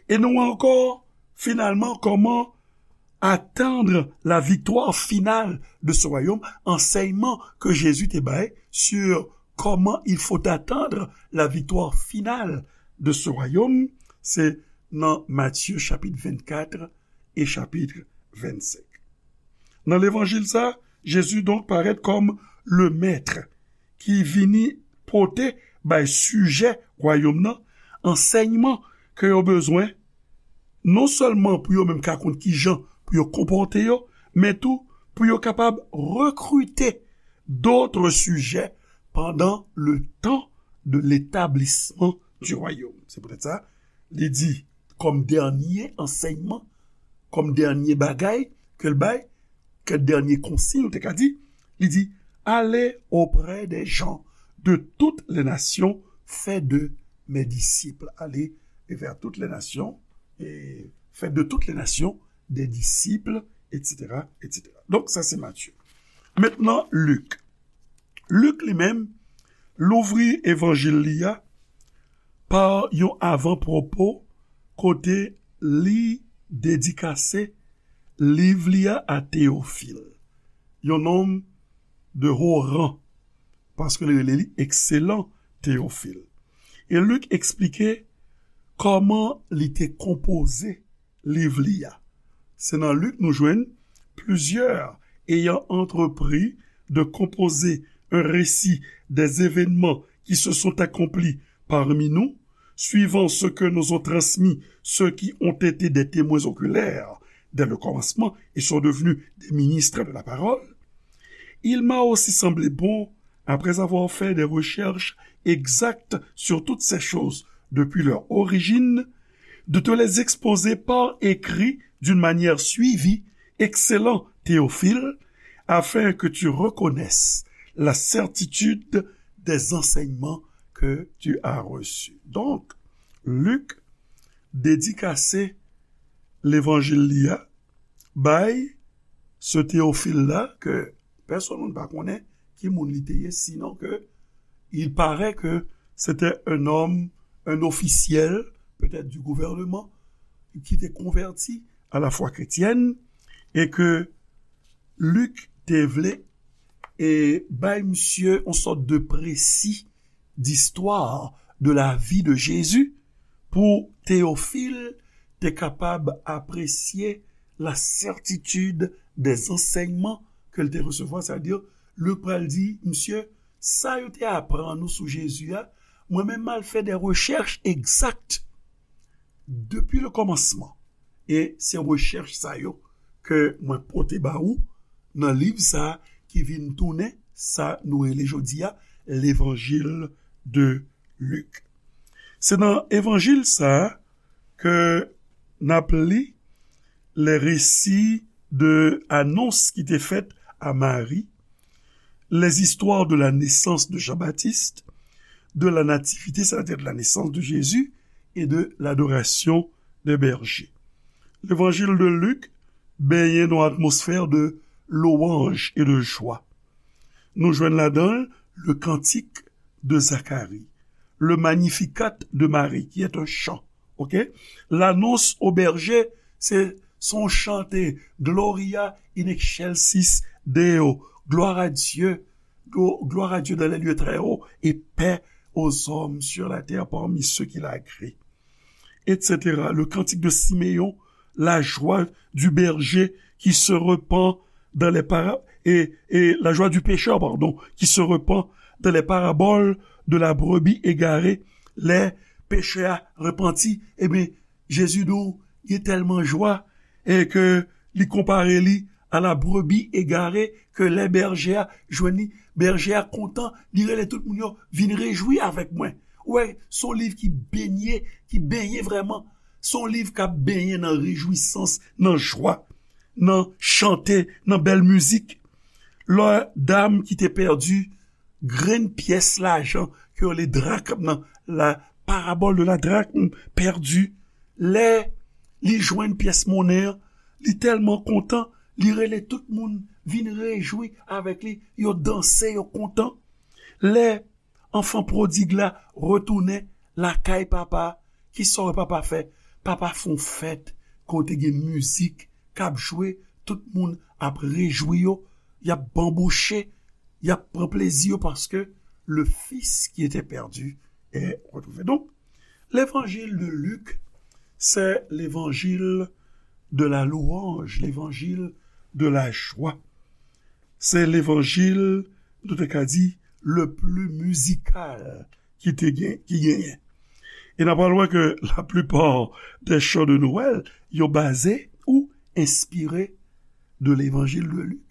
E nou wè ankò, finalman, kòman attendre la victoire finale de ce royaume, ansèyman ke Jezi te bay sur comment il faut attendre la victoire finale de ce royaume, se nan Matye chapit vennkat e chapit vennsenk. Nan levanjil sa, Jezi donk parèt kòm le mèt ki vini pote bay sijè wayòm nan ansèyman ke yo bezwen, non sèlman pou yo menm ka konn kijan pou yo konpòte yo, men tou pou yo kapab rekrite d'autres sujets pendant le temps de l'établissement du royaume. Se poutèt sa, li di, kòm dènye ansèyman, kòm dènye bagay ke l bay, ke dènye konsiy, ou te ka di, li di, allez auprès des gens de toutes les nations, faites de mes disciples. Allez vers toutes les nations, et faites de toutes les nations des disciples, et cetera, et cetera. Donk, sa se Matye. Mentnan, Lik. Lik li menm, louvri evanjil li a pa yon avan pwopo kote li dedikase liv li a a Teyofil, yon nonm de haut rang, paske li rele li ekselan Teyofil. E Lik eksplike kòman li te konpoze liv li a. Se nan Lik nou jwenn plusieurs ayant entrepris de composer un récit des événements qui se sont accomplis parmi nous, suivant ce que nous ont transmis ceux qui ont été des témoins oculaires dès le commencement et sont devenus des ministres de la parole. Il m'a aussi semblé bon, après avoir fait des recherches exactes sur toutes ces choses, depuis leur origine, de te les exposer par écrit d'une manière suivie, excellent Théophile, afin que tu reconnaisses la certitude des enseignements que tu as reçus. Donk, Lik dedikase levanjil li a bay se Teyofil la, ke pèsonn moun pa konnen ki moun li te ye, sinon ke il paraît que c'était un homme, un officiel, peut-être du gouvernement, ki te konvèti à la foi chrétienne, e ke Lik te vle e bay misye yon sòt de précis d'histoire de la vie de Jésus pou Teyofil te kapab apresye la certitude des enseignements ke l te resevwa, sètadi, Lik pral di, misye, sa yo te aprann ou sou Jezi a, mwen menm m al fè de rechèch egzak depi le kòmansman. E se rechèch sa yo ke mwen pote ba ou nan liv sa a ki vin tounen sa nou rele jodi a Levanjil de Lik. Se nan evanjil sa a ke n ap li les récits de anons ki te fèt a Mari, les histoires de la naissance de Jean-Baptiste, de la nativité, c'est-à-dire de la naissance de Jésus, et de l'adoration des bergers. Levanjil de Lik benyen nan yon atmosfè de louanj e de jwa. Nou jwenn ladan l le cantique de Zacharie, le Magnificat de Marie, qui est un chant. Ok? L'annonce aux bergers, se se yon chante, Gloria in excelsis Deo, gloire à Dieu, glo- gloire à Dieu dans les lieux très hauts, et paix aux hommes sur la terre parmi ceux qu'il a agréés, et cetera. Le cantique de Siméon, la joie du berger qui se repent dans les para- et, et la joie du pécheur, pardon, qui se repent dans les paraboles de la brebis égarée, lè pechè a repanti, ebyen, Jezi di w, gen tèlman jwa, e ke li konpare li a la brebi egare, ke lè bèje a jwenn li, bèje a kontan, li rele tout moun yo vin rejwi avèk mwen. Ou wè, se yon liv ki benye, ki benyen vrèman. Se yon liv k ap benyen nan rejwisans, nan jwa, nan chante, nan bèl mizik. Lè dam ki te pèdi grenn pyès lajan ke yo rele drakm nan, la parabole de la drachme perdue, lè li jwenn pyès monnen an, li tèlman kontan, li rele tout moun vin rejwi avèk li, yo danse, yo kontan. Lè anfan pwodig la retounen lakay papa, kisa w wè papa fè? Papa fè yon fèt kote gen mizik k ap jwe, tout moun ap rejwi yo, y ap banbouche, y ap pran plezi yo paske le fils qui était perdu est retrouvé. Donc, l'évangile de Luc, c'est l'évangile de la louange, l'évangile de la joie. Se levanjil, nou te ka di, le plus musical ki te gen, ki genyen. E n ap pral wè ke la plupart des chants de Noël, yo baze ou enspire de l'évangile de Luc.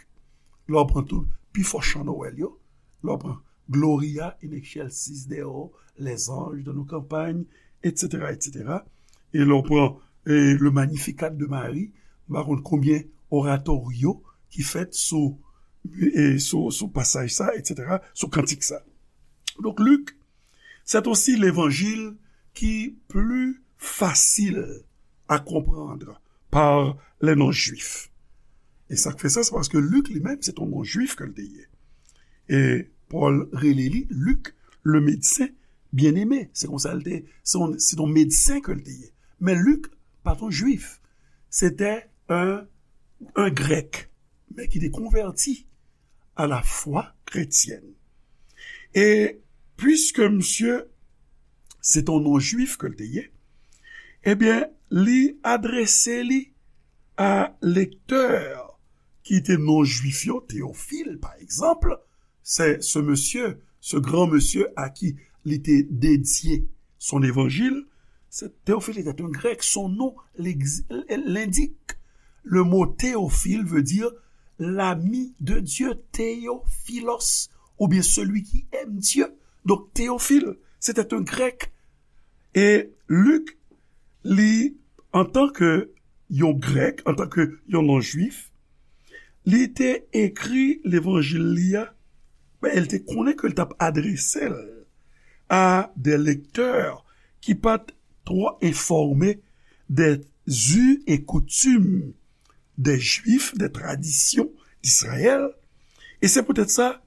Lè w pran tout pi fò chan Nwèl yo, lè w pran Gloria in excelsis Deo, les anges dans nos campagnes, et cetera, et cetera. E lè w pran e, le Magnificat de Marie, m pa konn konbyen oratorio ki fèt sou, e, sou, sou pasaj sa, et cetera, sou kantik sa. Donk, Lik, c'est aussi l'évangile qui plus facile à comprendre par les non-juifs. E sa k fè sa, se paske Lik li menm, se t yon non-jwif ke l te ye. E Pòl rele li Lik, le médecin bien-aimé. Se konsa l te, se yon, se yon medsen ke l te ye. Men Lik pa t yon jwif. Se te un, un grèk, men ki te konvèti à la foi chrétienne. E piske misye se t yon non-jwif ke l te ye, ebyen, li adrese li a lektè ki te non-jwif yo, Teyofil, pa egzanp, se, ce monsieur, ce grand monsieur à qui li te dedye son évangile, c'est, Théophile était un grec, son nom l'ex- l'indique. Le mot théophile veut dire l'ami de Dieu, théophilos, ou bien celui qui aime Dieu. Donc, Théophile, c'était un grec. E Lik, li, antanke yon Grèk, antanke yon non-Jwif, li te ekri Levanjil li a, men li te konnen ke l t ap adrese l a de lektè ki pa t twò enfòme de zi e koutim de Jwif, de tradisyon Izrayèl. E se poutèt sa,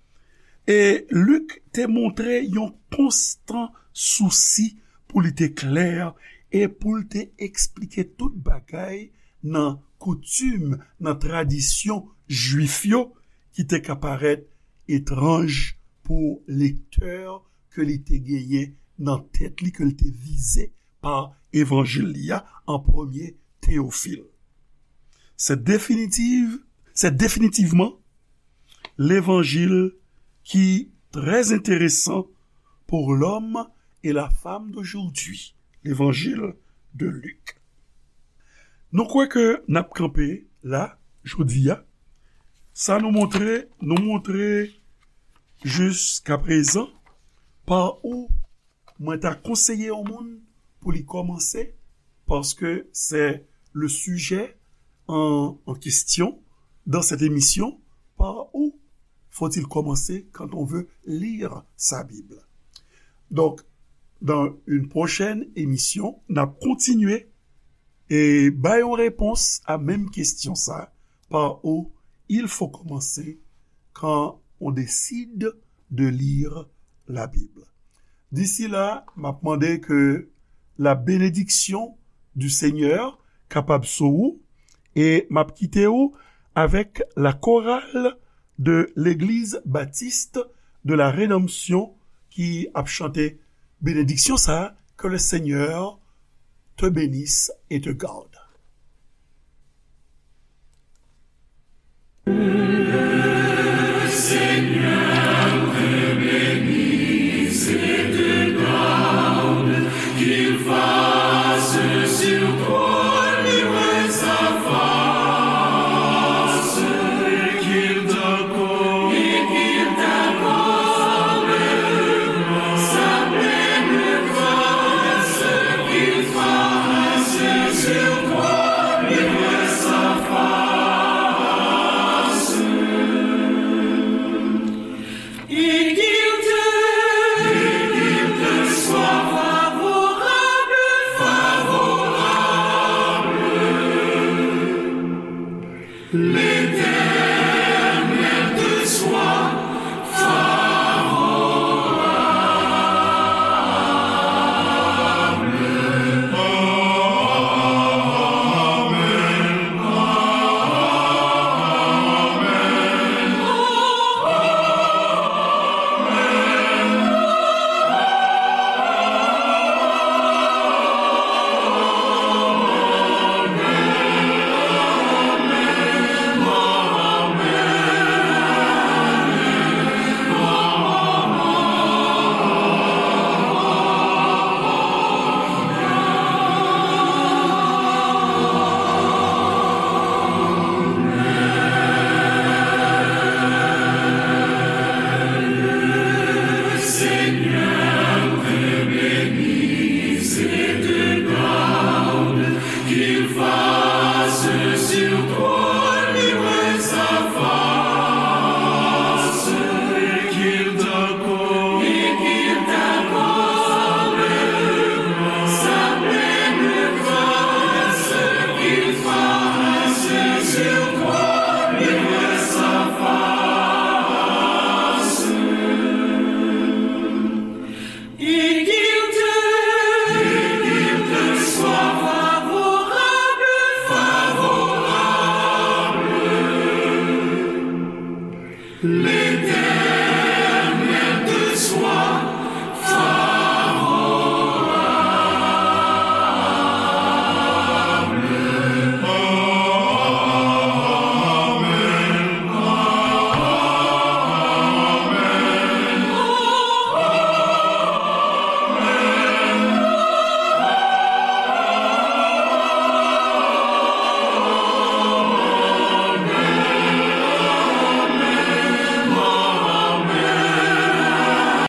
e Lik te montre yon konstan sousi pou li te klè e pou l te eksplike tout bagay nan koutim, nan tradisyon Jwif yo ki te ka parèt etranj pou lektè ke li te genyen nan tèt li, ke l te vize pa evanjil li a an premye, Teyofil. Se definitiv, se definitivman levanjil ki trè enteresan pour l'homme et la femme d'aujourd'hui, levanjil de Lik. Nou kwè ke n ap kanpe la, jodi a. Sa nou montre, nou montre jiskaprezan pa ou mwen ta konseye yon moun pou li kòmanse, paske se le sujet en, en question dans cette émission, par où faut-il commencer quand on veut lire sa Bible? Donc, dans une prochaine émission, n ap kontinye e bay yon repons a menm kesyon sa, par où il faut commencer quand on décide de lire la Bible. D'ici là, m ap mande ke la bénédiction du Seigneur kapab sou ou, e m ap kite ou avèk la chorale de l'Église Baptiste de la Rédemption ki ap chante benediksyon sa, que le Seigneur te bénisse et te garde.